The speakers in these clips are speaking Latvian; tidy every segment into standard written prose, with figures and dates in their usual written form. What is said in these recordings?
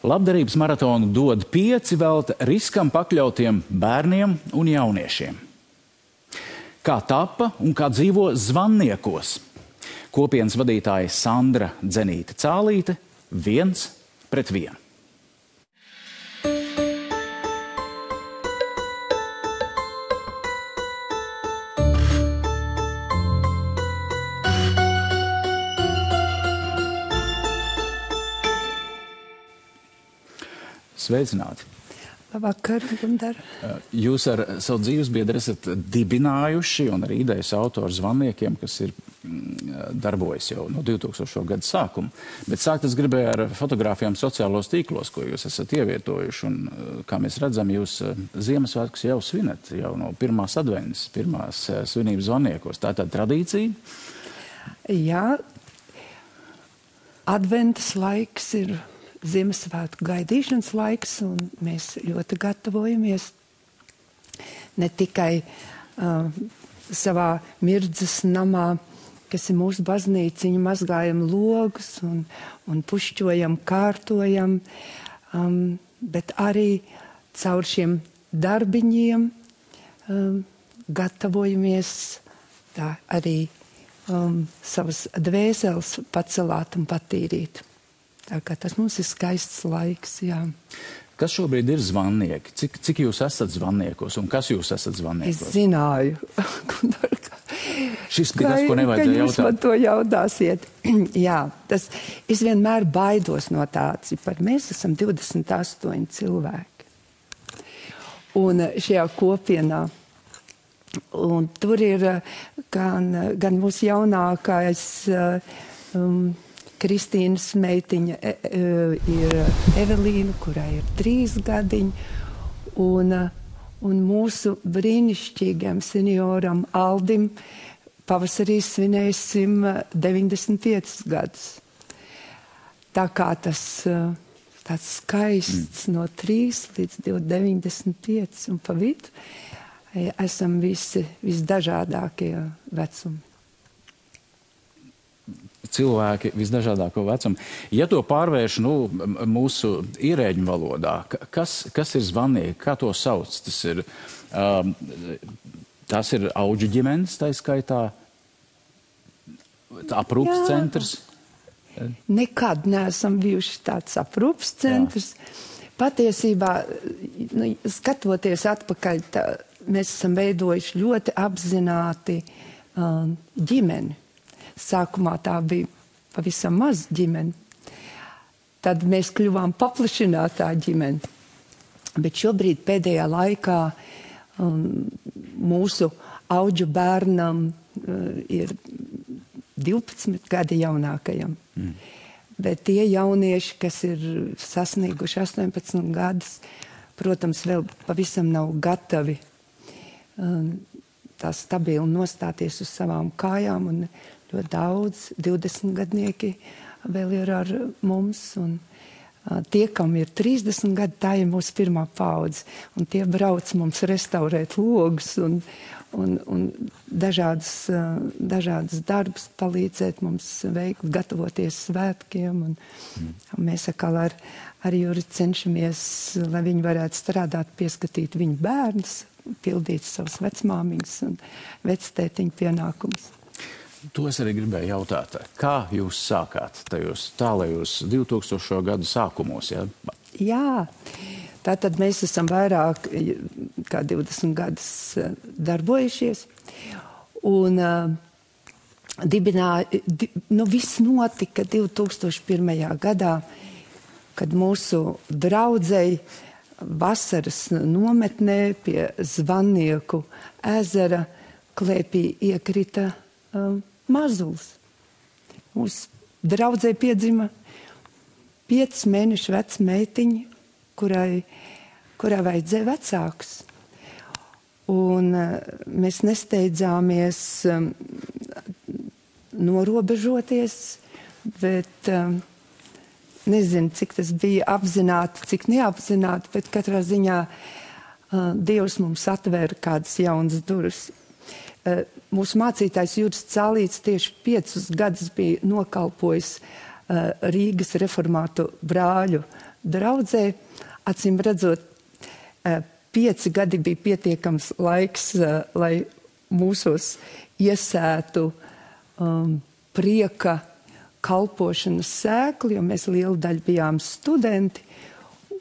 Labdarības maratonu dod 5 velta riskam pakļautiem bērniem un jauniešiem. Kā tapa un kā dzīvo Zvanniekos? Kopienas vadītāja Sandra Dzenīte-Cālīte 1-1. Sveicināti! Labvakar, Gundar. Jūs ar savu dzīvesbiedru esat dibinājuši un arī idejas autori Zvanniekiem, kas ir darbojas jau no 2000. gada sākuma. Bet sākt es gribēju ar fotogrāfijām sociālos tīklos, ko jūs esat ievietojuši. Un, kā mēs redzam, jūs Ziemassvētkus jau svinat, jau no pirmās adventas, pirmās svinības Zvanniekos. Tā ir tāda tradīcija? Jā, adventas laiks ir Ziemassvētku gaidīšanas laiks, un mēs ļoti gatavojamies ne tikai savā Mirdzes namā, kas ir mūsu baznīciņa, mazgājam logus un pušķojam, kārtojam, bet arī caur šiem darbiņiem gatavojamies tā arī savas dvēseles pacelāt un patīrīt. Tā kā tas mums ir skaists laiks, jā. Kas šobrīd ir Zvannieki? Cik jūs esat Zvanniekos un kas jūs esat Zvanniekos? Es zināju. Šis bija tas, ko nevajadzēja jautāt. Jūs man to jautāsiet. Jā, es vienmēr baidos no tā cipara. Mēs esam 28 cilvēki. Un šajā kopienā. Un tur ir gan mūsu jaunākais Kristīnas meitiņa ir Evelīna, kurai ir 3 gadiņi, un mūsu brīnišķīgam senioram Aldim pavasarī svinēsim 95 gadus. Tā kā tas tāds skaists no 3 līdz 95 un pa vidu esam visdažādākie vecumi. Cilvēki visdažādāko vecumu. Ja to pārvērš mūsu ierēģu valodā, kas ir Zvannieki, kā to sauc? Tas ir auģu ģimenes, tā skaitā, aprūpas centrs? Nekad neesam bijuši tāds aprūpas centrs. Jā. Patiesībā, skatoties atpakaļ, mēs esam veidojuši ļoti apzināti ģimeni. Sākumā tā bija pavisam maz ģimene. Tad mēs kļuvām paplašinātā ģimene. Bet šobrīd pēdējā laikā mūsu auģu bērnam ir 12 gadi jaunākajam. Bet tie jaunieši, kas ir sasnieguši 18 gadus, protams, vēl pavisam nav gatavi tā stabili nostāties uz savām kājām, un ļoti daudz 20 gadnieki vēl ir ar mums, un tie, kam ir 30 gadi, tā ir mūsu pirmā paudze, un tie brauc mums restaurēt logus un dažādas darbus palīdzēt mums veikt, gatavoties svētkiem, un mēs atkal ar Juri cenšamies, lai viņi varētu strādāt, pieskatīt viņu bērnus, pildīt savus vecmāmiņus un vectētiņu pienākumus. To es arī gribēju jautāt. Kā jūs sākāt tajos tālajos 2000. gadu sākumos? Ja? Jā, tātad mēs esam vairāk kā 20 gadus darbojušies. Un viss notika 2001. gadā, kad mūsu draudzei vasaras nometnē pie Zvannieku ezera klēpī iekrita mazulis. Mūsu draudzē piedzima 5 mēnešu veca meitiņa, kurai vajadzēja vecākus. Un mēs nesteidzāmies norobežoties, bet nezinu, cik tas bija apzināti, cik neapzināti, bet katrā ziņā Dievs mums atvēra kādas jaunas durvis. Mūsu mācītājs Juris Cālīts tieši 5 gadus bija nokalpojis Rīgas reformātu brāļu draudzē. Acīm redzot, 5 gadi bija pietiekams laiks, lai mūsos iesētu prieka kalpošanas sēkli, jo mēs lielu daļu bijām studenti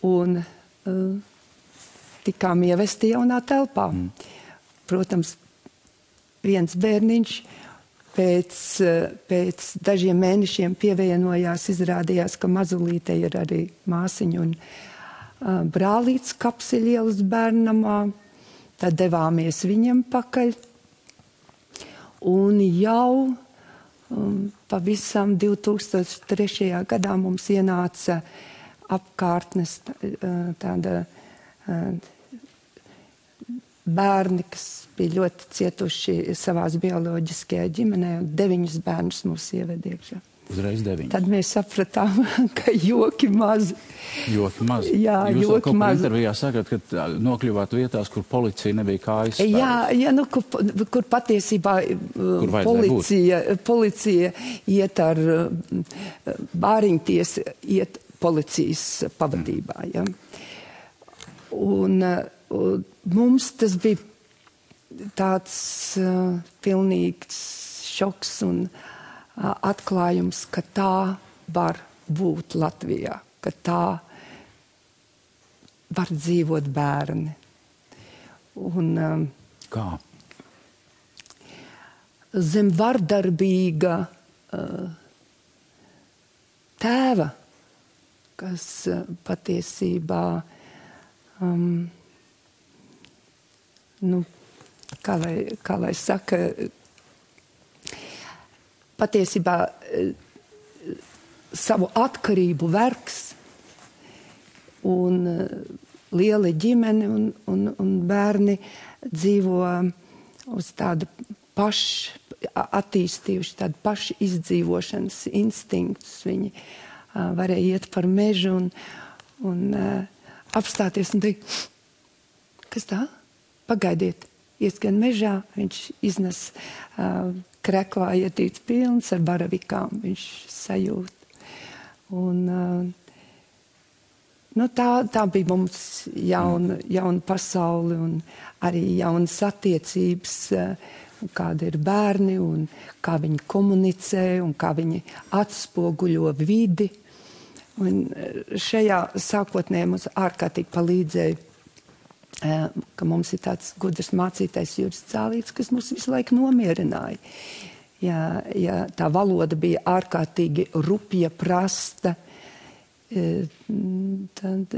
un tikām ievesti jaunā telpā. Protams, viens bērniņš pēc dažiem mēnešiem pievienojās, izrādījās, ka mazulīte ir arī māsiņa un brālīts Kapseļielas bērnamā. Tad devāmies viņam pakaļ. Un jau pavisam 2003. Gadā mums ienāca apkārtnes tāda bērni, kas bija ļoti cietuši savās bioloģiskajā ģimenē, un 9 bērnus mūs ieved iekšā. Uzreiz 9. Tad mēs sapratām, ka joki mazi. Joki mazi. Jā, jūs joki mazi. Intervijā sakat, ka nokļuvāt vietās, kur policija nebija kājas spēles. Jā, nu, kur patiesībā policija iet ar bāriņties, iet policijas pavadībā. Ja. Un mums tas bija tāds pilnīgs šoks un atklājums, ka tā var būt Latvijā, ka tā var dzīvot bērni. Un, kā? Zem vardarbīga tēva, kas patiesībā, kā lai saka, patiesībā savu atkarību vergs un liela ģimene un bērni dzīvo uz tādu attīstījuši tādu pašu izdzīvošanas instinktus. Viņi varēja iet par mežu un apstāties un teikt, kas tā? Pagaidiet, ieskan mežā, viņš iznes kreklā ietīts pilns ar baravikām, viņš sajūt. Un, tā bija mums jauna pasauli un arī jaunas attiecības, kāda ir bērni un kā viņi komunicē un kā viņi atspoguļo vidi. Un šajā sākotnē mums ārkārtīgi palīdzēja, ka mums ir tāds gudrs mācītājs Juris Cālīts, kas mūs visu laiku nomierināja. Ja tā valoda bija ārkārtīgi rupja, prasta, tad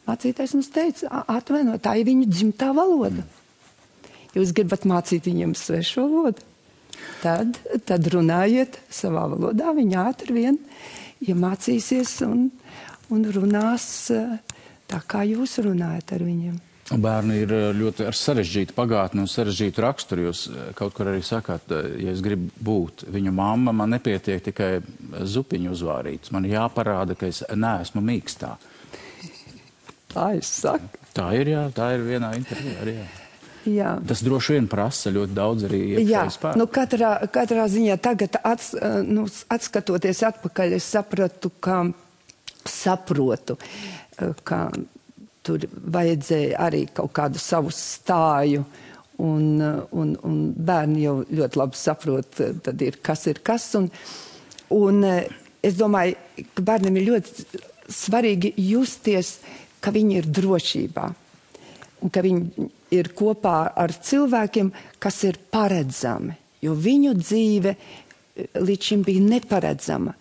mācītājs mums teica, atvainojiet, tā ir viņu dzimtā valoda. Jūs gribat mācīt viņiem svešu valodu? Tad runājiet savā valodā, viņi ātri vien iemācīsies un runās tā, kā jūs runājat ar viņiem. Bērni ir ļoti ar sarežģītu pagātni un sarežģītu raksturu. Jūs kaut kur arī sakāt, ja es gribu būt viņu mamma, man nepietiek tikai zupiņu uzvārīts. Man jāparāda, ka es neesmu mīkstā. Tā es saku. Tā ir, jā, tā ir vienā intervijā arī, jā. Jā. Tas droši vien prasa ļoti daudz arī iekšēji spēku. Nu katrā ziņā tagad atskatoties atpakaļ, es saprotu, ka tur vajadzēja arī kaut kādu savu stāju, un bērni jau ļoti labi saprot, tad ir kas. Un es domāju, ka bērniem ir ļoti svarīgi justies, ka viņi ir drošībā, un ka viņi ir kopā ar cilvēkiem, kas ir paredzami, jo viņu dzīve līdz šim bija neparedzama.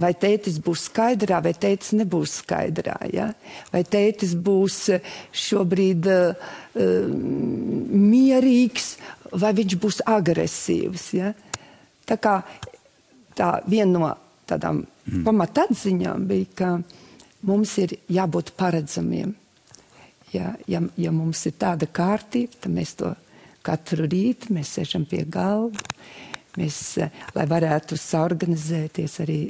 Vai tētis būs skaidrā, vai tētis nebūs skaidrā, ja? Vai tētis būs šobrīd mierīgs, vai viņš būs agresīvs, ja? Tā kā viena no tādām pamatatziņām bija, ka mums ir jābūt paredzamiem. Ja mums ir tāda kārtība, tad mēs to katru rītu, mēs sēžam pie galda, lai varētu saorganizēties arī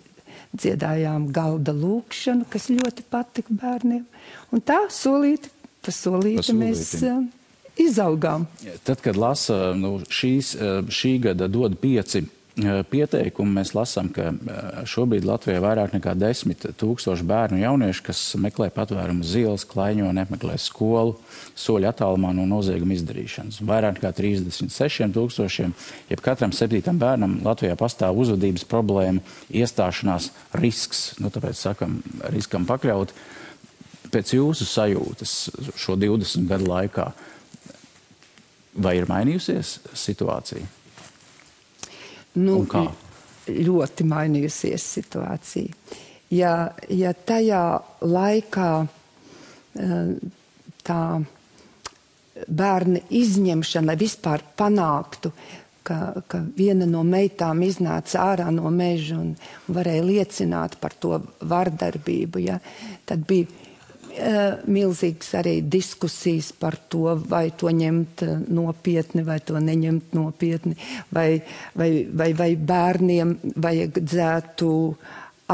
dziedājām galda lūkšanu, kas ļoti patika bērniem. Un tā solīti mēs izaugām. Tad, kad lasa šī gada dod 5 pieteikumu mēs lasām, ka šobrīd Latvijā vairāk nekā 10 000 bērnu un jauniešu, kas meklē patvērumu uz ielas, klaiņo, nemeklē skolu, soļu attālumā no nozieguma izdarīšanas. Vairāk nekā 36 000, jeb katram 7. bērnam Latvijā pastāv uzvedības problēma, iestāšanās risks, tāpēc sakam, riskam pakļaut. Pēc jūsu sajūtas šo 20 gadu laikā, vai ir mainījusies situācija? Un kā? Ļoti mainījusies situācija. Ja tajā laikā tā bērna izņemšana vispār panāktu, ka viena no meitām iznāca ārā no meža un varēja liecināt par to vardarbību, tad bija milzīgas arī diskusijas par to, vai to ņemt nopietni, vai to neņemt nopietni, vai bērniem vajadzētu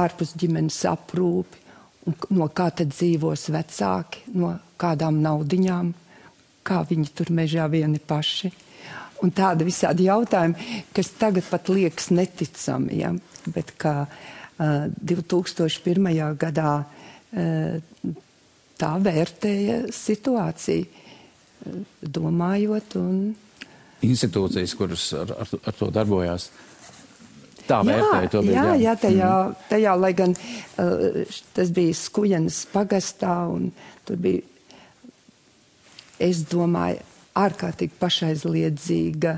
ārpus ģimenes aprūpi, un no kā tad dzīvos vecāki, no kādām naudiņām, kā viņi tur mežā vieni paši. Un tādi visādi jautājumi, kas tagad pat liekas neticami, bet kā 2001. Gadā tā vērtēja situāciju, domājot un... Institūcijas, kuras ar to darbojās, tā vērtēja to bija. Jā, tajā, lai gan tas bija Skujenas pagastā, un tur bija, es domāju, ārkārtīgi pašaizliedzīga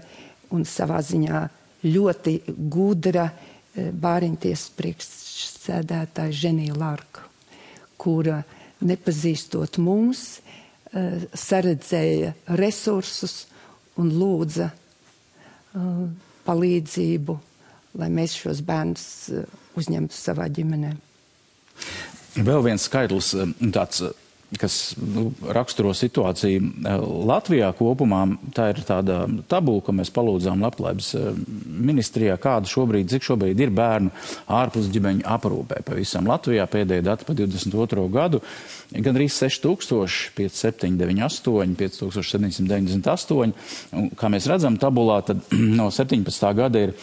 un savā ziņā ļoti gudra Bāriņtiesas priekšsēdētāja Ženija Larka, kura nepazīstot mūs, saredzēja resursus un lūdza palīdzību, lai mēs šos bērnus uzņemtu savā ģimenē. Vēl viens skaitlis, tāds, kas raksturo situāciju Latvijā kopumā, tā ir tāda tabula, ko mēs palūdzām Labklājības ministrijā, cik šobrīd ir bērnu ārpus ģimeņu aprūpē. Pavisam Latvijā pēdējie dati pa 22. gadu, gandrīz 6000, 5798, 5798. Un, kā mēs redzam tabulā, tad no 17. gada ir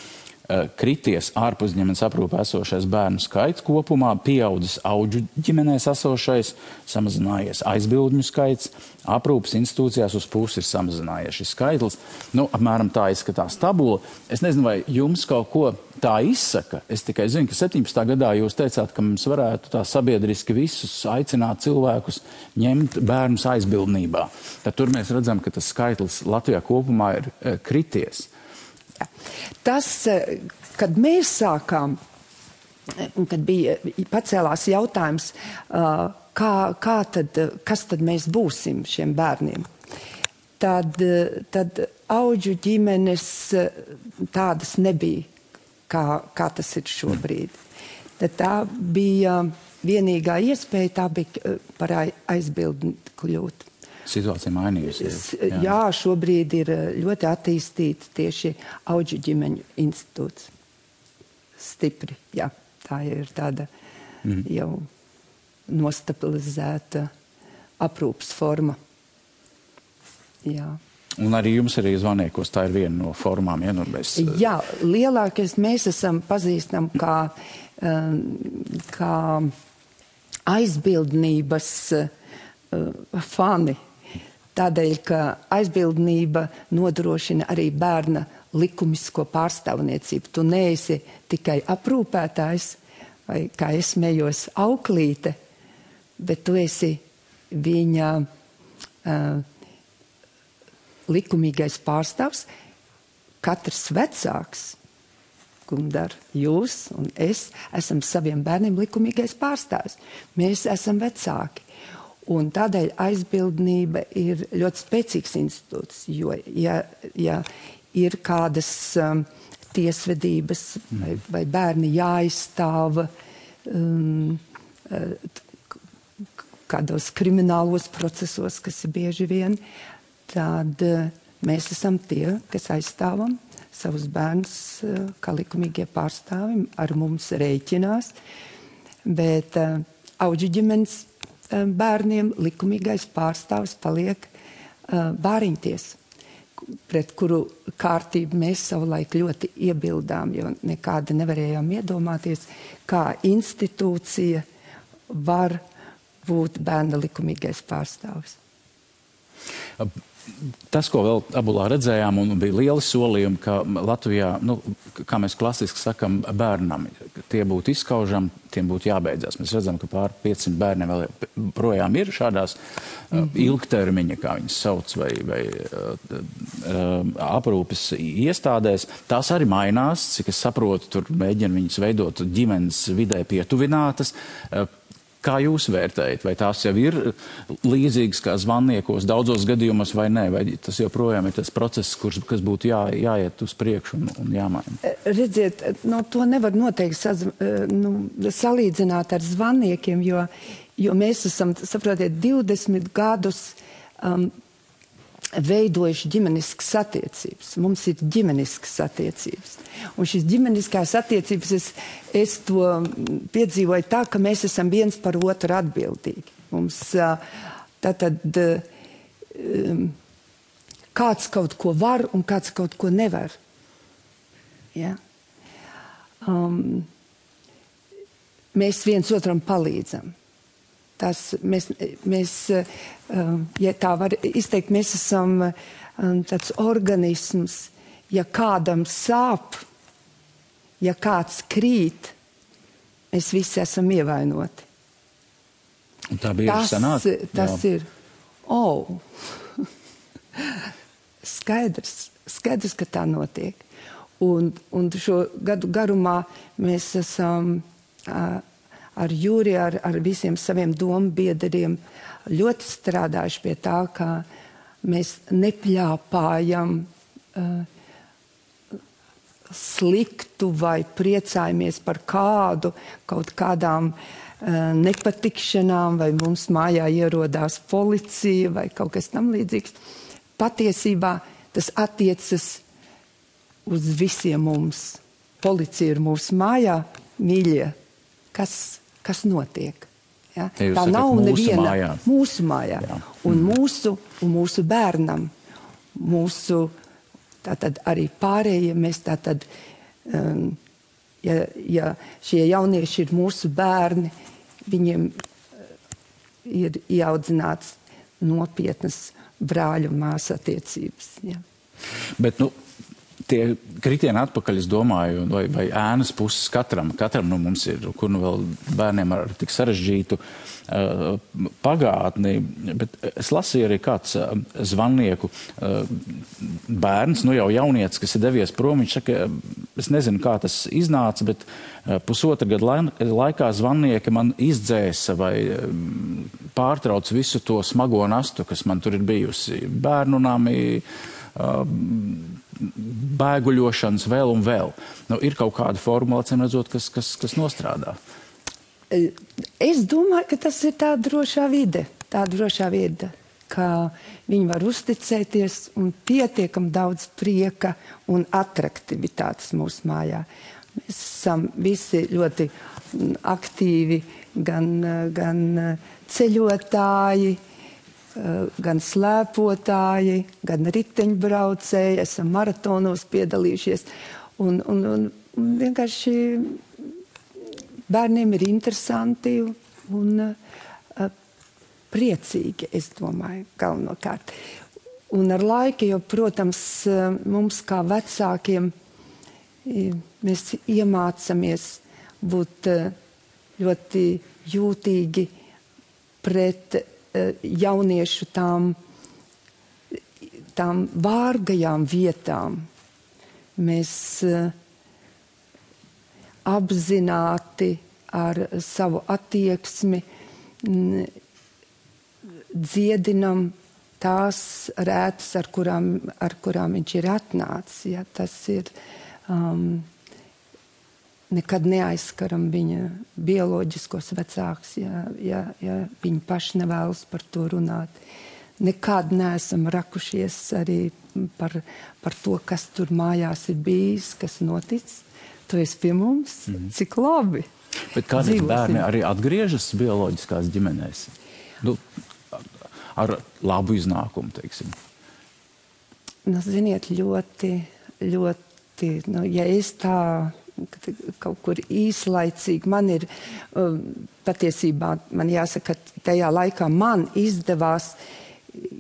krities ārpus ģimenes aprūpē esošais bērnu skaits kopumā, pieaudzis auģu ģimenēs esošais, samazinājies aizbildņu skaits, aprūpes institūcijās uz pusi ir samazinājies šis skaitlis. Apmēram tā izskatās tabula. Es nezinu, vai jums kaut ko tā izsaka. Es tikai zinu, ka 17. gadā jūs teicāt, ka mums varētu tā sabiedriski visus aicināt cilvēkus ņemt bērnus aizbildnībā. Tad tur mēs redzam, ka tas skaitlis Latvijā kopumā ir krities. Tas, kad mēs sākām, kad bija pacēlās jautājums, kas tad mēs būsim šiem bērniem, tad auģu ģimenes tādas nebija, kā tas ir šobrīd. Tad tā bija vienīgā iespēja, tā bija par aizbildni kļūt. Situācija mainījusies. Jā, šobrīd ir ļoti attīstīta tieši auģu ģimeņu institūts. Stipri, jā. Tā ir tāda jau nostabilizēta aprūpas forma. Jā. Un arī jums arī zvaniekos tā ir viena no formām, Jā, lielākais mēs esam pazīstam kā aizbildnības fani. Tādēļ, ka aizbildnība nodrošina arī bērna likumisko pārstāvniecību. Tu neesi tikai aprūpētājs, vai, kā es smējos, auklīte, bet tu esi viņa likumīgais pārstāvs. Katrs vecāks, Gundar, jūs un es, esam saviem bērniem likumīgais pārstāvs. Mēs esam vecāki. Un tādēļ aizbildnība ir ļoti spēcīgs institūts, jo, ja ir kādas tiesvedības vai bērni jāizstāv kādos kriminālos procesos, kas ir bieži vien, tad mēs esam tie, kas aizstāvam savus bērnus kā likumīgie pārstāvi, ar mums rēķinās, bet auģu ģimenes bērniem likumīgais pārstāvs paliek Bāriņtiesa, pret kuru kārtību mēs savulaik ļoti iebildām, jo nekādi nevarējām iedomāties, kā institūcija var būt bērna likumīgais pārstāvis. Tas, ko vēl Abulā redzējām, un bija lieli solījumi, ka Latvijā, kā mēs klasiski sakam, bērnam, tie būtu izskaužami, tiem būtu jābeidzās. Mēs redzam, ka pār 500 bērniem vēl projām ir šādās ilgtermiņa, kā viņas sauc, vai aprūpes iestādēs. Tās arī mainās, cik es saprotu, tur mēģina viņas veidot ģimenes vidē pietuvinātas. Kā jūs vērtējat? Vai tās jau ir līdzīgas kā zvannīkos daudzos gadījumos vai nē? Vai tas joprojām ir tas process, kas būtu jāiet uz priekšu un jāmaina? Redziet, to nevar noteikti salīdzināt ar zvannīkiem, jo mēs esam, saprotiet, 20 gadus veidojuši ģimeniskas attiecības. Mums ir ģimeniskas attiecības. Un šīs ģimeniskās attiecības, es to piedzīvoju tā, ka mēs esam viens par otru atbildīgi. Mums tātad kāds kaut ko var un kāds kaut ko nevar. Ja? Mēs viens otram palīdzam. Mēs, ja tā var izteikt, mēs esam tāds organisms, ja kādam sāp, ja kāds krīt, mēs visi esam ievainoti. Un tā bieži sanāk? Tas ir. Skaidrs, ka tā notiek. Un šo gadu garumā mēs esam ar Jūri, ar visiem saviem dombiedriem ļoti strādājuši pie tā, ka mēs nepļāpājam sliktu vai priecājamies par kaut kādām nepatikšanām, vai mums mājā ierodās policija vai kaut kas tam līdzīgs. Patiesībā tas attiecas uz visiem mums. Policija ir mūsu mājā, mīļie. Kas notiek? Ja? Tā nav neviena mūsu mājā. Un mūsu bērnam, tātad arī pārējie, mēs tātad, ja šie jaunieši ir mūsu bērni, viņiem ir ieaudzināts nopietnas brāļu un māsu attiecības. Ja. Bet, tie kritieni atpakaļ, es domāju, vai ēnas puses katram mums ir, kur vēl bērniem ar tik sarežģītu pagātni, bet es lasīju arī kāds zvannīku bērns, jau jaunietis, kas ir devies prom, viņš saka, es nezinu, kā tas iznāca, bet pusotra gada laikā zvannīka man izdzēsa vai pārtrauc visu to smago nastu, kas man tur ir bijusi. Bērnu nami, bēguļošanas vēl un vēl. Ir kaut kāda formula, acīm redzot, kas nostrādā. Es domāju, ka tas ir tā drošā vide, ka viņi var uzticēties un pietiekam daudz prieka un atraktivitātes mūsu mājā. Mēs esam visi ļoti aktīvi, gan ceļotāji, gan slēpotāji, gan riteņbraucēji, esam maratonos piedalījušies. Un vienkārši bērniem ir interesanti un priecīgi, es domāju, galvenokārt. Un ar laiku, jo, protams, mums kā vecākiem mēs iemācamies būt ļoti jūtīgi pret jauniešu tām vārgajām vietām. Mēs apzināti ar savu attieksmi dziedinam tās rētas, ar kurām viņš ir atnācis. Ja, tas ir nekad neaizskaram viņa bioloģiskos vecākus, ja viņi paši nevēlas par to runāt. Nekad neesam rakušies arī par to, kas tur mājās ir bijis, kas noticis. Tu esi pie mums, cik labi. Bet kādreiz bērni arī atgriežas bioloģiskās ģimenēs? Ar labu iznākumu, teiksim. Nu, ziniet, ļoti, ja es tā kaut kur īslaicīgi, man ir patiesībā, man jāsaka, tajā laikā man izdevās,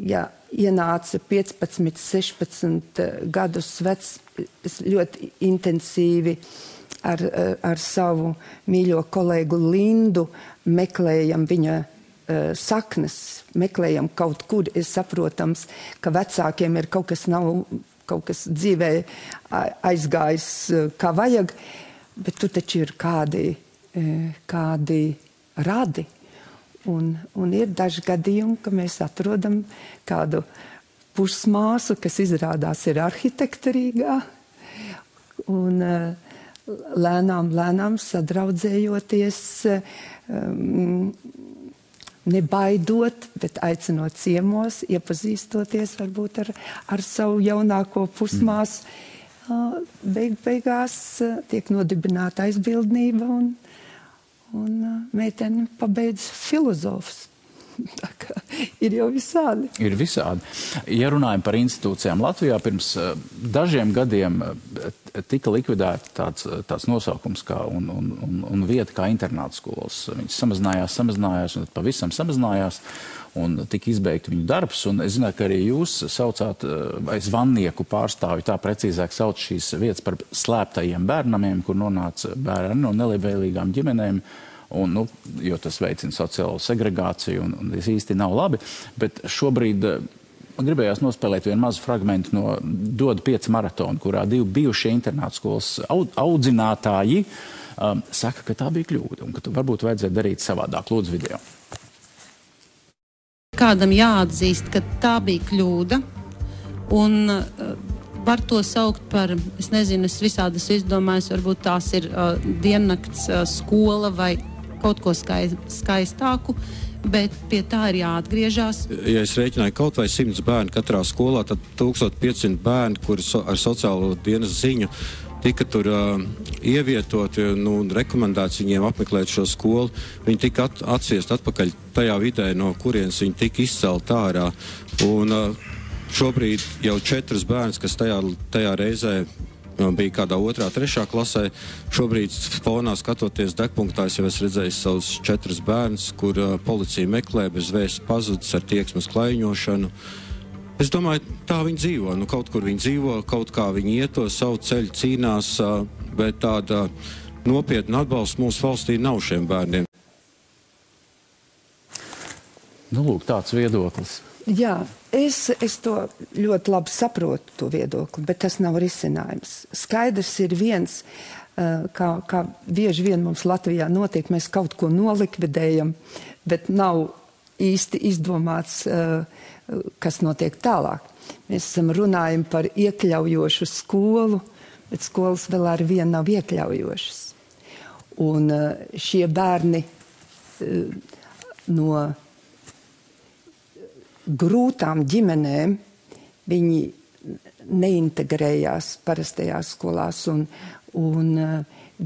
ja ienāca 15, 16 gadus vecs, es ļoti intensīvi ar savu mīļo kolēgu Lindu meklējam viņa saknes, meklējam kaut kur, ir saprotams, ka vecākiem ir kaut kas dzīvē aizgājis kā vajag, bet tur taču ir kādi radi. Un ir daži gadījumi, ka mēs atrodam kādu pusmāsu, kas izrādās ir arhitekta Rīgā, un lēnām sadraudzējoties, nebaidot, bet aicinot ciemos, iepazīstoties varbūt ar savu jaunāko pusmāsu. Beigās tiek nodibināta aizbildnība un meitene pabeidz filozofus. Tā kā ir jau visādi. Ir visādi. Ja runājam par institūcijām Latvijā, pirms dažiem gadiem tika likvidēta tāds nosaukums kā un vieta kā internāta skolas. Viņas samazinājās un pavisam samazinājās un tika izbeigta viņu darbs. Un es zinu, ka arī jūs saucāt, vai zvannieku pārstāvi tā precīzāk sauc šīs vietas par slēptajiem bērnamiem, kur nonāca bērni no nelabvēlīgām ģimenēm. Un, jo tas veicina sociālo segregāciju un tas īsti nav labi. Bet šobrīd man gribējās nospēlēt vienu mazu fragmentu no Dod 5 maratona, kurā 2 bijušie internāta skolas audzinātāji saka, ka tā bija kļūda un ka varbūt vajadzētu darīt savādāk. Lūdzu video. Kādam jāatzīst, ka tā bija kļūda un var to saukt par, es nezinu, es visādas izdomājos, varbūt tās ir diennakts skola vai kaut ko skaistāku, bet pie tā ir jāatgriežās. Ja es rēķināju kaut vai 100 bērni katrā skolā, tad 1500 bērni, kuri ar sociālo dienas ziņu tika tur ievietoti, rekomendēts viņiem apmeklēt šo skolu. Viņi tika atsviest atpakaļ tajā vidē, no kurienes viņi tika izcelt ārā. Un šobrīd jau 4 bērns, kas tajā reizē bija kādā 2., 3. klasē. Šobrīd fonā skatoties degpunktā, es jau esmu redzējis savus 4 bērns, kur policija meklē bez vēsts pazudis ar tieksmes klaiņošanu. Es domāju, tā viņi dzīvo. Kaut kur viņi dzīvo, kaut kā viņi iet to savu ceļu, cīnās, bet tāda nopietna atbalsta mūsu valstī nav šiem bērniem. Lūk, tāds viedoklis. Jā, es to ļoti labi saprotu, to viedokli, bet tas nav risinājums. Skaidrs ir viens, kā bieži vien mums Latvijā notiek, mēs kaut ko nolikvidējam, bet nav īsti izdomāts, kas notiek tālāk. Mēs runājam par iekļaujošu skolu, bet skolas vēl ar vienu nav iekļaujošas. Un šie bērni no grūtām ģimenēm, viņi neintegrējās parastajās skolās un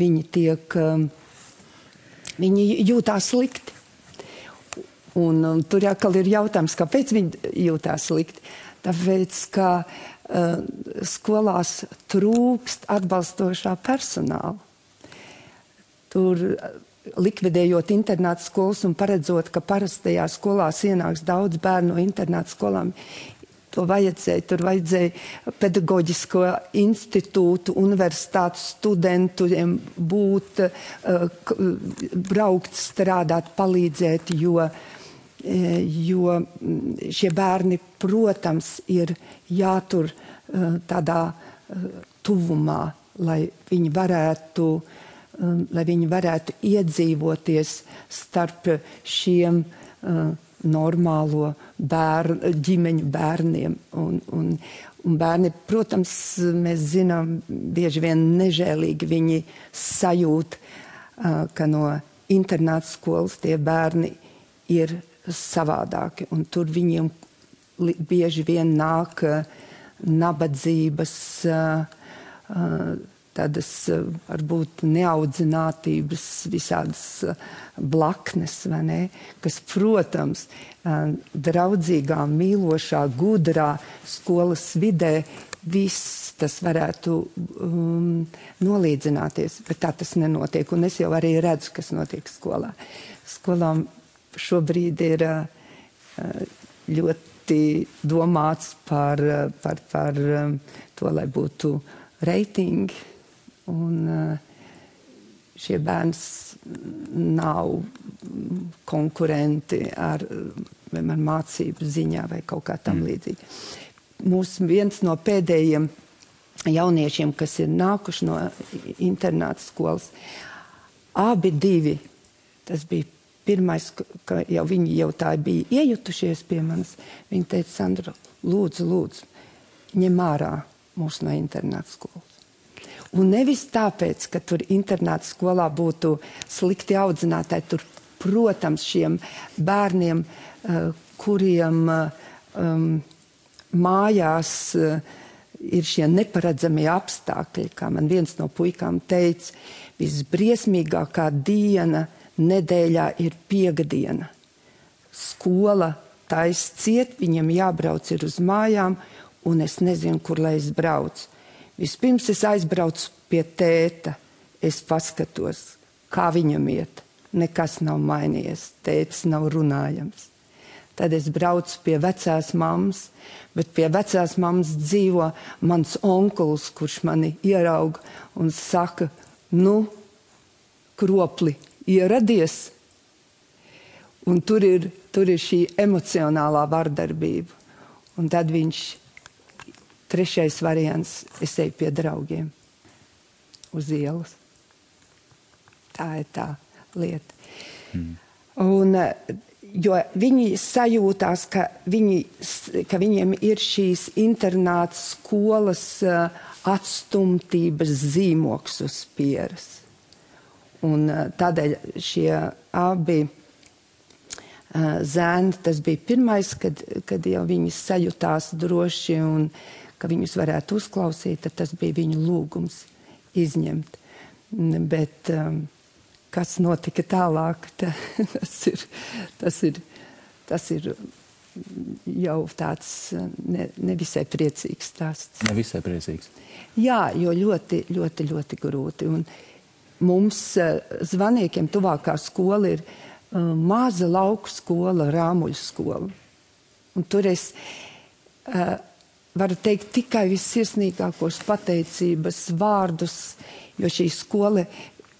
viņi jūtās slikti. Un tur atkal ir jautājums, kāpēc viņi jūtās slikti. Tāpēc, ka skolās trūkst atbalstošā personāla. Tur likvidējot internāta skolas un paredzot, ka parastajās skolās ienāks daudz bērnu no internāta skolām, tur vajadzēja pedagoģisko institūtu, universitātu studentiem būt, braukt, strādāt, palīdzēt, jo šie bērni, protams, ir jātur tādā tuvumā, lai viņi varētu iedzīvoties starp šiem normālo ģimeņu bērniem. Un bērni, protams, mēs zinām, bieži vien nežēlīgi viņi sajūt, ka no internāta skolas tie bērni ir savādāki. Un tur viņiem bieži vien nāk nabadzības tādas varbūt neaudzinātības visādas blaknes, vai ne, kas, protams, draudzīgā, mīlošā, gudrā skolas vidē viss tas varētu nolīdzināties, bet tā tas nenotiek. Un es jau arī redzu, kas notiek skolā. Skolām šobrīd ir ļoti domāts par to, lai būtu reitingi, un šie bērni nav konkurenti ar mācību ziņā vai kaut kā tam līdzīgi. Viens no pēdējiem jauniešiem, kas ir nākuši no internāta skolas, abi divi, tas bija pirmais, ka viņi jau tā bija iejutušies pie manis, viņi teica, Sandra, lūdzu, ņem ārā mūs no internāta skolas. Un nevis tāpēc, ka tur internāta skolā būtu slikti audzinātāji, tur, protams, šiem bērniem, kuriem mājās ir šie neparedzamie apstākļi, kā man viens no puikām teica, visbriesmīgākā diena nedēļā ir piekdiena. Skola tais ciet, viņam jābrauc ir uz mājām, un es nezinu, kur lai es braucu. Vispirms es aizbraucu pie tēta, es paskatos, kā viņam iet. Nekas nav mainījies, tētis nav runājams. Tad es braucu pie vecās mammas, bet pie vecās mammas dzīvo mans onkulis, kurš mani ierauga un saka, kropli, ieradies. Un tur ir šī emocionālā vardarbība. Un tad trešais variants, es eju pie draugiem uz ielas. Tā ir tā lieta. Un, jo viņi sajūtās, ka viņiem ir šīs internāta skolas atstumtības zīmoks uz pieres. Un tādēļ šie abi zēni, tas bija pirmais, kad jau viņi sajūtās droši un ka viņus varētu uzklausīt, tad tas bija viņu lūgums izņemt. Bet kas notika tālāk, tas ir jau tāds nevisai priecīgs stāsts. Nevisai priecīgs. Jā, jo ļoti, ļoti, ļoti grūti. Un mums Zvaniekiem tuvākā skola ir maza lauku skola, Rāmuļu skola. Un tur es varu teikt tikai vissirsnīgākos pateicības vārdus, jo šī skola,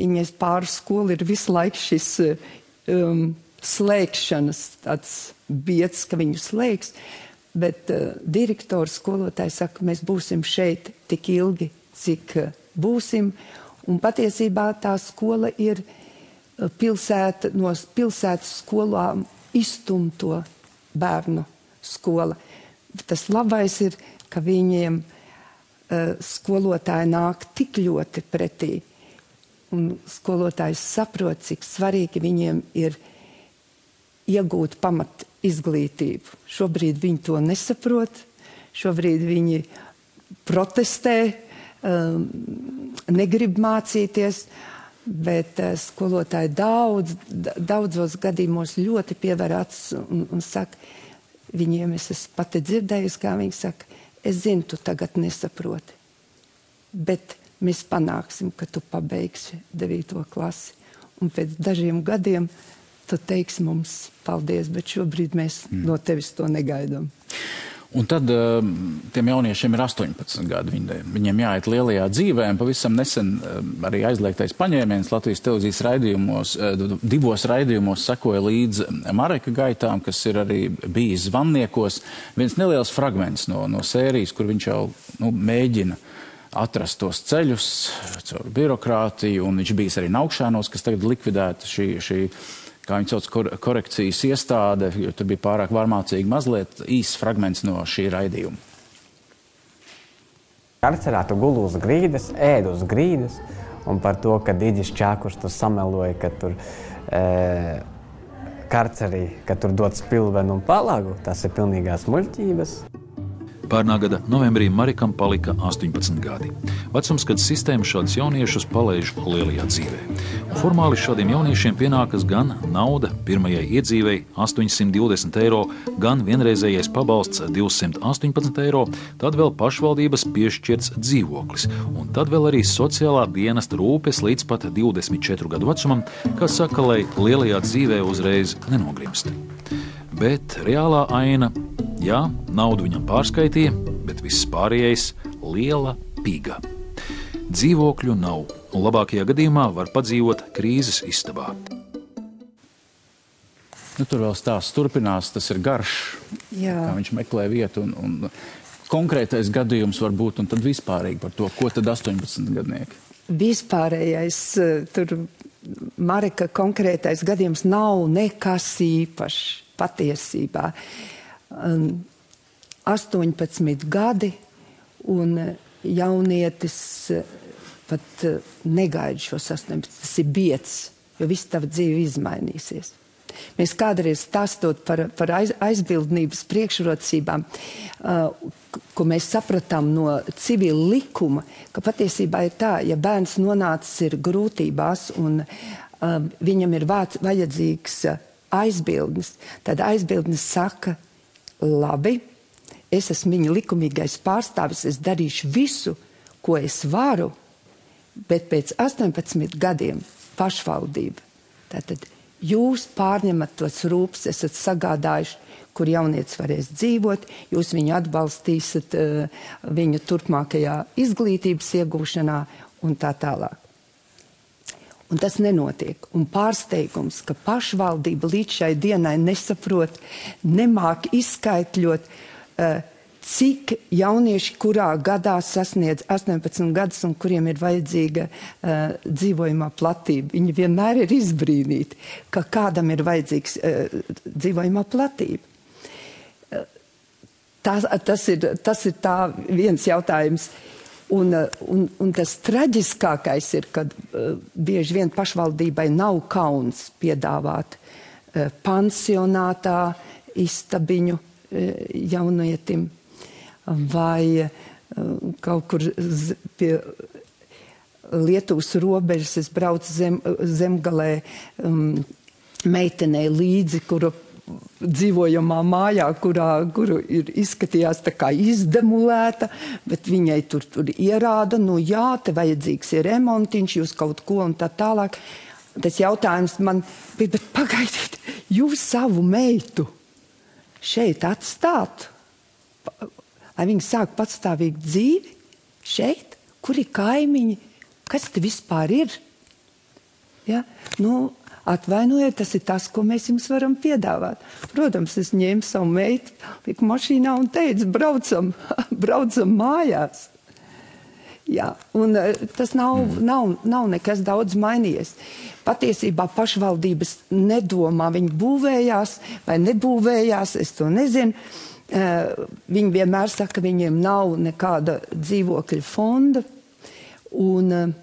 viņas pāris skola ir visu laiku šis slēgšanas tāds bieds, ka viņu slēgs, bet direktors, skolotājs saka, mēs būsim šeit tik ilgi, cik būsim, un patiesībā tā skola ir no pilsētas skolām izstumto bērnu skola. Tas labais ir, ka viņiem skolotāji nāk tik ļoti pretī. Un skolotājs saprot, cik svarīgi viņiem ir iegūt pamat izglītību. Šobrīd viņi to nesaprot, šobrīd viņi protestē, negrib mācīties, bet skolotāji daudzos gadījumos ļoti piever acis un saka, viņiem es esmu pati dzirdējusi, kā viņi saka, es zinu, tu tagad nesaproti, bet mēs panāksim, ka tu pabeigsi 9. klasi. Un pēc dažiem gadiem tu teiksi mums paldies, bet šobrīd mēs no tevis to negaidām. Un tad tiem jauniešiem ir 18 gadi. Viņiem jāiet lielajā dzīvē. Pavisam nesen arī aizliegtais paņēmiens Latvijas televīzijas raidījumos, 2 raidījumos sekoja līdz Mareka gaitām, kas ir arī bijis Zvaniekos. Viens neliels fragments no sērijas, kur viņš jau mēģina atrast tos ceļus caur birokrātiju, un viņš bijis arī Naukšanos, kas tagad likvidēta šī kā viņi sauc, korekcijas iestāde, jo tur bija pārāk varmācīgi mazliet īsts fragments no šī raidījuma. Karcerā tu guli uz grīdas, ēd uz grīdas, un par to, ka Diģis Čākurs tur sameloja, ka tur karcerī, ka tur dod spilvenu un palagu, tas ir pilnīgās muļķības. Pērnā gada novembrī Marikam palika 18 gadi. Vecums, kad sistēma šādus jauniešus palaiž lielajā dzīvē. Un formāli šādiem jauniešiem pienākas gan nauda pirmajai iedzīvei 820 eiro, gan vienreizējais pabalsts 218 eiro, tad vēl pašvaldības piešķirts dzīvoklis, un tad vēl arī sociālā dienesta rūpes līdz pat 24 gadu vecumam, kas saka, lai lielajā dzīvē uzreiz nenogrimst. Bet reālā aina, jā, naudu viņam pārskaitīja, bet viss pārējais liela piga. Dzīvokļu nav, un labākajā gadījumā var padzīvot krīzes istabā. Tur vēl stāsts turpinās, tas ir garš, kā viņš meklē vietu, un konkrētais gadījums var būt, un tad vispārīgi par to, ko tad 18 gadnieki? Vispārējais, tur Marika konkrētais gadījums nav nekas īpašs. Patiesībā 18 gadi un jaunietis pat negaida šos 18. Tas ir biedz, jo viss tava dzīve izmainīsies. Mēs kādreiz stāstot par aizbildnības priekšrocībām, ko mēs sapratām no civila likuma, ka patiesībā ir tā, ja bērns nonācis ir grūtībās un viņam ir vajadzīgs aizbildnis, tad aizbildnis saka, labi, es esmu viņa likumīgais pārstāvis, es darīšu visu, ko es varu, bet pēc 18 gadiem pašvaldība. Tātad jūs pārņemat tos rūpes, esat sagādājuši, kur jaunietis varēs dzīvot, jūs viņu atbalstīsiet viņu turpmākajā izglītības iegūšanā un tā tālāk. Un tas nenotiek. Un pārsteigums, ka pašvaldība līdz šai dienai nesaprot, nemāk izskaitļot, cik jaunieši kurā gadā sasniedz 18 gadus un kuriem ir vajadzīga dzīvojamā platība. Viņi vienmēr ir izbrīnīti, ka kādam ir vajadzīgs dzīvojamā platība. Tas ir tā viens jautājums. Un tas traģiskākais ir, kad bieži vien pašvaldībai nav kauns piedāvāt pansionātā istabiņu jaunietim vai kaut kur pie Lietuvas robežas. Es braucu zemgalē meitenei līdzi, kuru dzīvojamā mājā, kuru izskatījās tā kā izdemulēta, bet viņai tur ierāda, nu jā, te vajadzīgs ir remontiņš, jūs kaut ko un tā tālāk. Tas jautājums man bija, bet pagaidiet, jūs savu meitu šeit atstāt, lai viņi sāk patstāvīgu dzīvi šeit, kur ir kaimiņi, kas te vispār ir? Ja? Nu, atvainojiet, tas ir tas, ko mēs jums varam piedāvāt. Protams, es ņēmu savu meitu, liku mašīnā un teicu, braucam mājās. Jā, un tas nav nekas daudz mainījies. Patiesībā pašvaldības nedomā, viņi būvējās vai nebūvējās, es to nezinu. Viņi vienmēr saka, ka viņiem nav nekāda dzīvokļa fonda. Un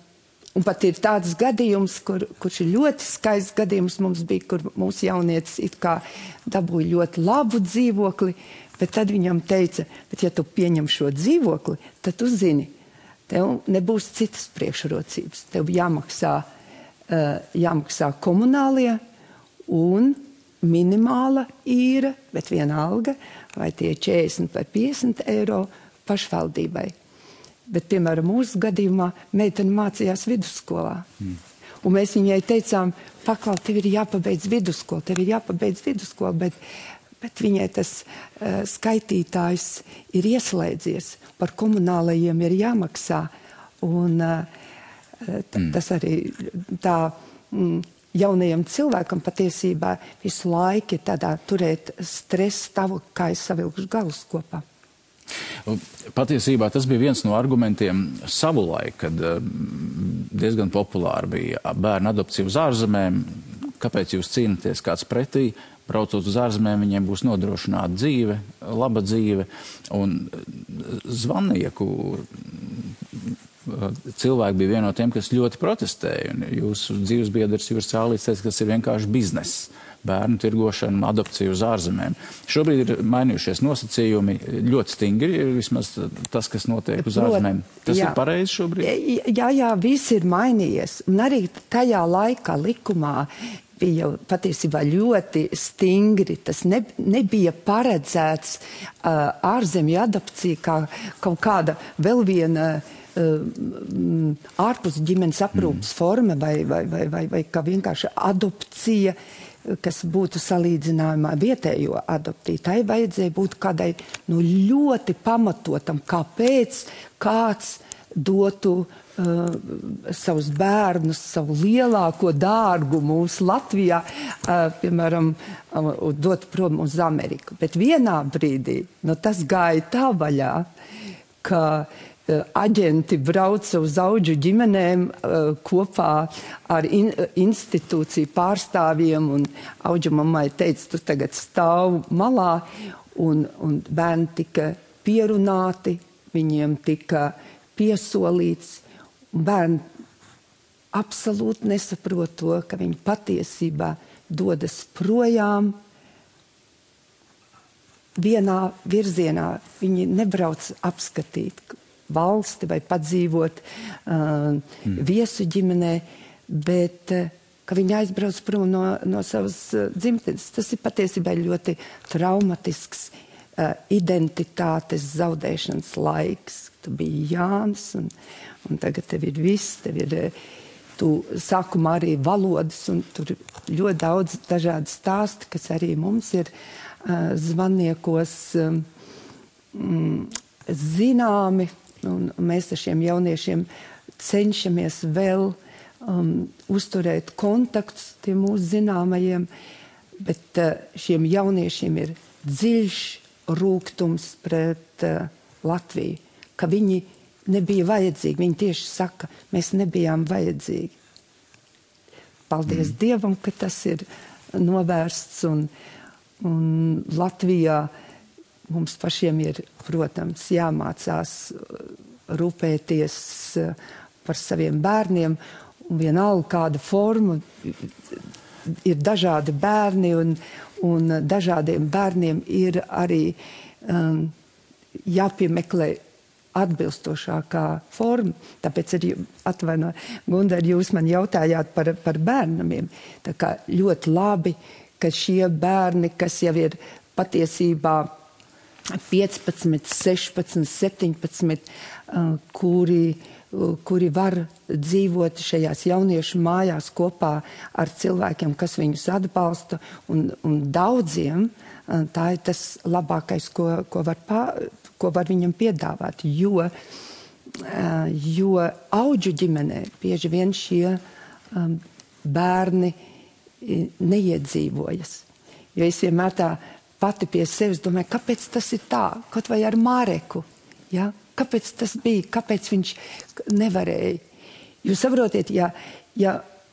pat ir tāds gadījums, kurš ir ļoti skaists gadījums mums bija, kur mūsu jaunietis it kā dabūja ļoti labu dzīvokli, bet tad viņam teica, bet ja tu pieņem šo dzīvokli, tad tu zini, tev nebūs citas priekšrocības. Tev jāmaksā komunālie un minimāla īra, bet vienalga, vai tie 40 vai 50 eiro pašvaldībai. Bet, piemēram, mūsu gadījumā meitene mācījās vidusskolā. Un mēs viņai teicām, paklau, tev ir jāpabeidz vidusskola, bet viņai tas skaitītājs ir ieslēdzies, par komunālajiem ir jāmaksā. Un tas arī tā jaunajam cilvēkam patiesībā visu laiku ir tādā turēt stresa stāvokli, kā es savilkuši galus kopā. Patiesībā tas bija viens no argumentiem savulaik, kad diezgan populāri bija bērnu adopcija uz ārzemēm. Kāpēc jūs cīnaties kāds pretī? Braucot uz ārzemēm, viņiem būs nodrošināta dzīve, laba dzīve. Un Zvannieku cilvēki bija viena no tiem, kas ļoti protestēja. Un jūsu dzīvesbiedrs Juris Cālīts teica, ka tas ir vienkārši bizness. Bērnu tirgošanu, adopciju uz ārzemēm. Šobrīd ir mainījušies nosacījumi ļoti stingri, vismaz tas, kas notiek uz ārzemēm. Tas ir pareizi šobrīd? Jā, viss ir mainījies. Un arī tajā laikā likumā bija jau patiesībā ļoti stingri. Tas nebija paredzēts ārzemju adopcija kā kaut kāda vēl viena ārpus ģimenes aprūpas forma vai kā vienkārši adopcija, kas būtu salīdzinājumā vietējo adoptiju. Tai vajadzēja būt kādai ļoti pamatotam, kāpēc kāds dotu savus bērnus, savu lielāko dārgu mūsu Latvijā, piemēram, dot prom uz Ameriku. Bet vienā brīdī tas gāja tā vaļā, ka aģenti brauca uz Audžu ģimenēm kopā ar institūciju pārstāvjiem, un Audžu mammai teica, tu tagad stāv malā, un bērni tika pierunāti, viņiem tika piesolīts, un bērni absolūti nesaprot to, ka viņi patiesībā dodas projām vienā virzienā. Viņi nebrauc apskatīt valsti vai padzīvot viesu ģimenē, bet ka viņi aizbrauc prom no savas dzimtenes. Tas ir patiesībā ļoti traumatisks identitātes zaudēšanas laiks. Tu biji Jānis, un tagad tev ir viss, tu sākumā arī valodas, un tur ļoti daudz dažādi stāsti, kas arī mums ir zvaniekos zināmi. Un mēs ar šiem jauniešiem cenšamies vēl uzturēt kontaktus tiem mūsu zināmajiem, bet šiem jauniešiem ir dziļš rūgtums pret Latviju, ka viņi nebija vajadzīgi. Viņi tieši saka, mēs nebijām vajadzīgi. Paldies Dievam, ka tas ir novērsts, un Latvijā mums pašiem ir, protams, jāmācās rūpēties par saviem bērniem, un vienalga kāda forma. Ir dažādi bērni, un dažādiem bērniem ir arī jāpiemeklē atbilstošākā forma. Tāpēc arī Gundar, jūs man jautājāt par bērnamiem. Tā kā ļoti labi, ka šie bērni, kas jau ir patiesībā 15, 16, 17, kuri var dzīvot šajās jauniešu mājās kopā ar cilvēkiem, kas viņus atbalsta, un daudziem tā ir tas labākais, ko var viņam piedāvāt, jo Audžu ģimenē bieži vien šie bērni neiedzīvojas. Jo es vienmēr tā pati pie sevis domāju, kāpēc tas ir tā, kaut vai ar Māreku, ja? Kāpēc tas bija, kāpēc viņš nevarēja. Jūs saprotiet, ja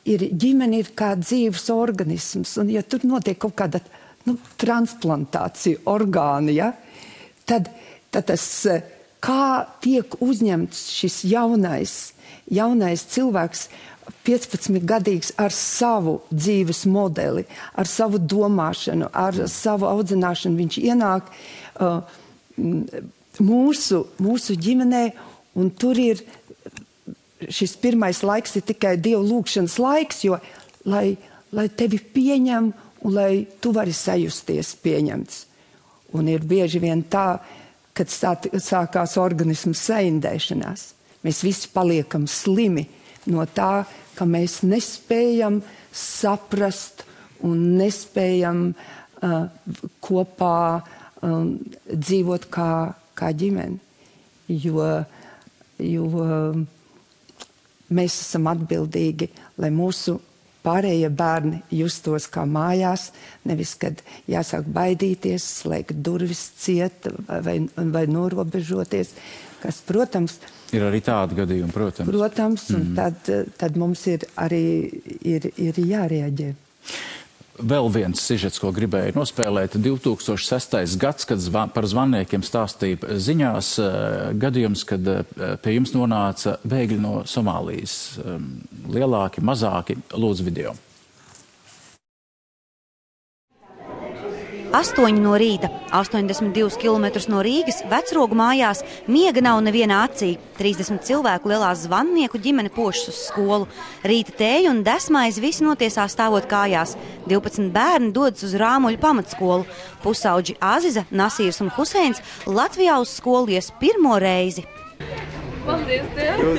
ģimene ir kā dzīves organisms, un ja tur notiek kaut kāda transplantācija orgāna, ja? tad tas, kā tiek uzņemts šis jaunais cilvēks, 15-gadīgs ar savu dzīves modeli, ar savu domāšanu, ar savu audzināšanu. Viņš ienāk mūsu ģimenē, un tur ir šis pirmais laiks ir tikai Dievu lūgšanas laiks, jo lai tevi pieņem un lai tu vari sajusties pieņemts. Un ir bieži vien tā, kad sākās organismu saindēšanās. Mēs visi paliekam slimi no tā, ka mēs nespējam saprast un nespējam kopā dzīvot kā ģimene. Jo mēs esam atbildīgi, lai mūsu pārējie bērni justos kā mājās, nevis, kad jāsāk baidīties, slēgt durvis ciet vai norobežoties, kas, protams, ir arī tādi gadījumi, protams. Protams, un tad mums ir arī ir jārēģē. Vēl viens sižets, ko gribēju nospēlēt, 2006. gads, kad par zvannēkiem stāstīja ziņās, gadījums, kad pie jums nonāca bēgļi no Somālijas. Lielāki, mazāki, lūdzu video. 8 no rīta, 82 km no Rīgas, Vecrogu mājās, miega nav nevienā acī. 30 cilvēku lielā zvannieku ģimene pošas uz skolu. Rīta tēju un desmaizi visi notiesā stāvot kājās. 12 bērni dodas uz Rāmuļu pamatskolu. Pusauģi Aziza, Nasīrs un Huseins Latvijā uz skolu ies pirmo reizi. Paldies, Diev!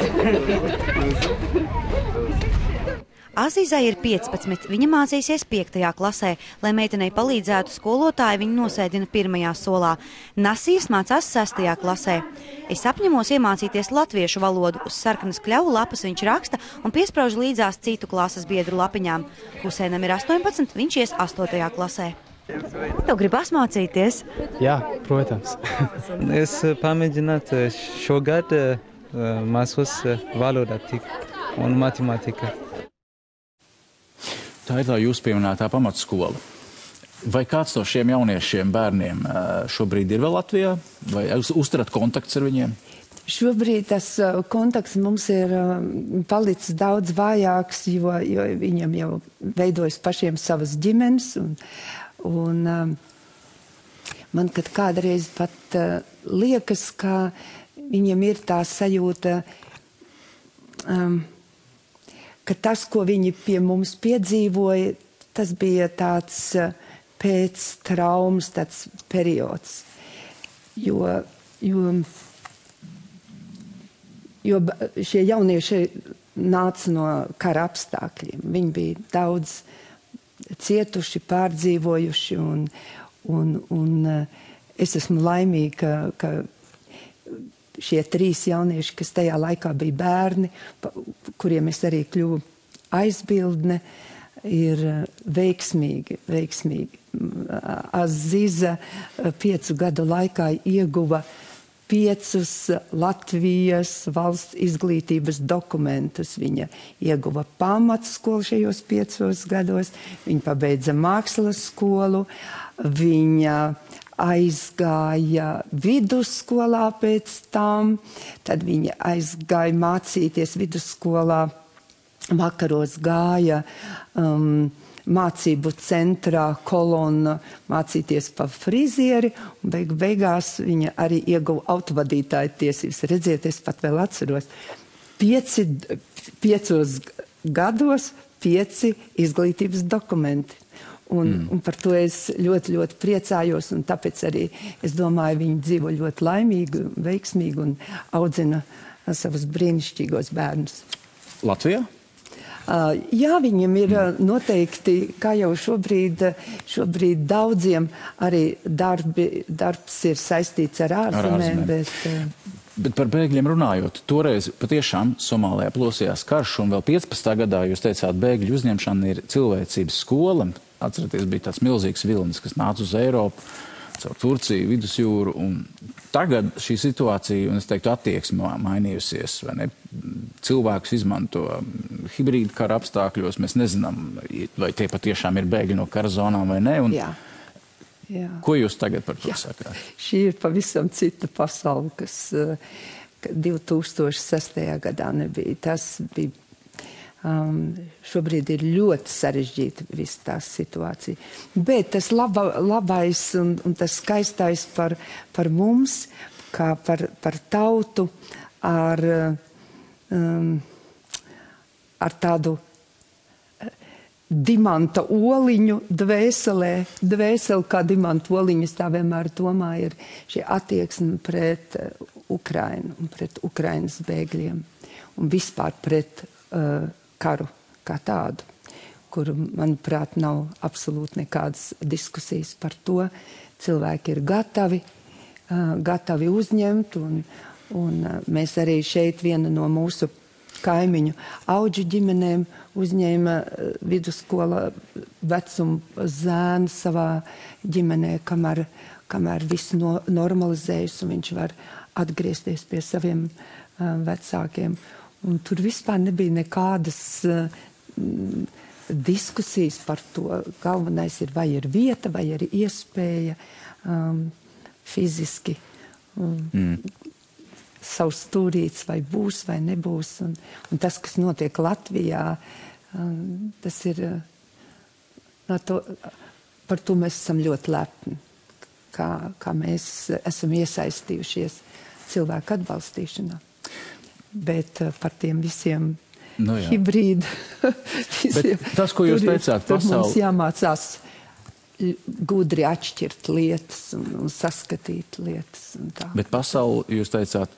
Azizai ir 15, viņa mācīsies 5. klasē. Lai meitenei palīdzētu skolotāji, viņa nosēdina 1. solā. Nasīrs mācās 6. klasē. Es apņemos iemācīties latviešu valodu. Uz sarkanas kļavu lapas viņš raksta un piesprauž līdzās citu klases biedru lapiņām. Huseinam ir 18, viņš ies 8. klasē. Tev gribas mācīties? Jā, protams. Es pamēģinātu šogad mācos valodā un matemātika. Tā ir tā jūs pieminētā pamatskola. Vai kāds no šiem jauniešiem bērniem šobrīd ir vēl Latvijā? Vai uzturat kontakts ar viņiem? Šobrīd tas kontakts mums ir palicis daudz vājāks, jo viņam jau veidojas pašiem savas ģimenes. Un man kādreiz pat liekas, ka viņam ir tā sajūta, ka tas, ko viņi pie mums piedzīvoja, tas bija tāds pēc traumas tāds periods. Jo šie jaunieši nāca no kara apstākļiem. Viņi bija daudz cietuši, pārdzīvojuši, un es esmu laimīga, ka šie 3 jaunieši, kas tajā laikā bija bērni, kuriem es arī kļuvu aizbildne, ir veiksmīgi. Aziza 5 gadu laikā ieguva 5 Latvijas valsts izglītības dokumentus. Viņa ieguva pamatskolu šajos 5 gados, viņa pabeidza mākslas skolu, viņa aizgāja vidusskolā pēc tam, tad viņa aizgāja mācīties vidusskolā, vakaros gāja mācību centrā Kolona mācīties pa frizieri, un beigās viņa arī ieguva autovadītāja tiesības. Redziet, es pat vēl atceros, 5 gados 5 izglītības dokumenti. Un par to es ļoti, ļoti priecājos, un tāpēc arī es domāju, viņi dzīvo ļoti laimīgi, veiksmīgi un audzina savus brīnišķīgos bērnus. Latvijā? Jā, viņam ir noteikti, kā jau šobrīd daudziem arī darbs ir saistīts ar ārzemēm, Bet par bēgļiem runājot, toreiz patiešām Somālijā plosījās karš, un vēl 15. gadā jūs teicāt, bēgļu uzņemšana ir cilvēcības skola. Atceraties, bija tāds milzīgs vilnis, kas nāca uz Eiropu, caur Turciju, Vidusjūru, un tagad šī situācija, un es teiktu, attieksme mainījusies, vai ne? Cilvēkus izmanto hibrīdu kara apstākļos, mēs nezinām, vai tie patiešām ir bēgļi no kara zonām vai ne. Jā. Jā. Ko jūs tagad par to sakāt? Šī ir pavisam cita pasaule, kas 2006. gadā nebija. Tas bija, šobrīd ir ļoti sarežģīta visa tā situācija. Bet tas labais un tas skaistais par mums, kā par tautu ar tādu dimanta oliņu dvēseli kā dimanta oliņas, tā vienmēr domāju, ir šī attieksme pret Ukrainu un pret Ukrainas bēgļiem un vispār pret karu kā tādu, kur, manuprāt, nav absolūti nekādas diskusijas par to. Cilvēki ir gatavi uzņemt, un mēs arī šeit viena no mūsu kaimiņu auģu ģimenēm uzņēma vidusskola vecuma zēnu savā ģimenē, kamēr viss normalizējas un viņš var atgriezties pie saviem vecākiem. Un tur vispār nebija nekādas diskusijas par to. Galvenais ir, vai ir vieta, vai ir iespēja fiziski savs stūrīts, vai būs, vai nebūs. Un tas, kas notiek Latvijā, tas ir, par to mēs esam ļoti lepni, kā mēs esam iesaistījušies cilvēku atbalstīšanā. Bet par tiem visiem hibrīdu. Tas, ko jūs teicāt, pasauli. Mums jāmācās gudri atšķirt lietas un saskatīt lietas. Un tā. Bet pasauli, jūs teicāt,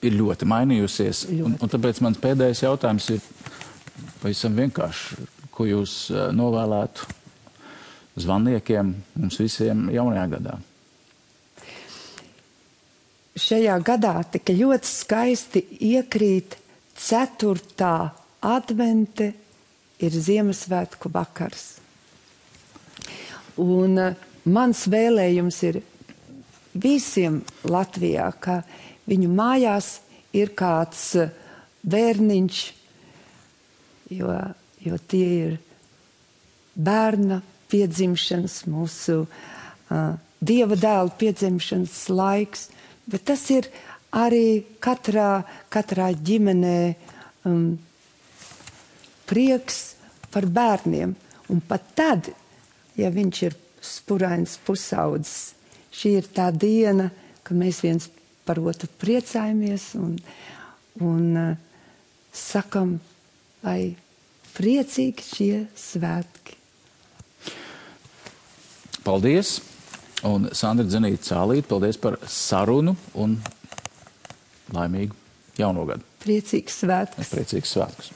ir ļoti mainījusies. Un tāpēc mans pēdējais jautājums ir pavisam vienkārši. Ko jūs novēlētu zvanniekiem, mums visiem jaunajā gadā? Šajā gadā tika ļoti skaisti iekrīt 4. advente, ir Ziemassvētku vakars. Un mans vēlējums ir visiem Latvijā, ka viņu mājās ir kāds bērniņš, jo tie ir bērna piedzimšanas, mūsu Dieva dēla piedzimšanas laiks, bet tas ir arī katrā ģimenē prieks par bērniem. Un pat tad, ja viņš ir spurains pusaudzis, šī ir tā diena, kad mēs viens par otru priecājamies un sakam, lai priecīgi šie svētki. Paldies! Un Sandra Dzenīte-Cālīte, paldies par sarunu un laimīgu jauno gadu. Priecīgs svētkus! Priecīgs svētkus!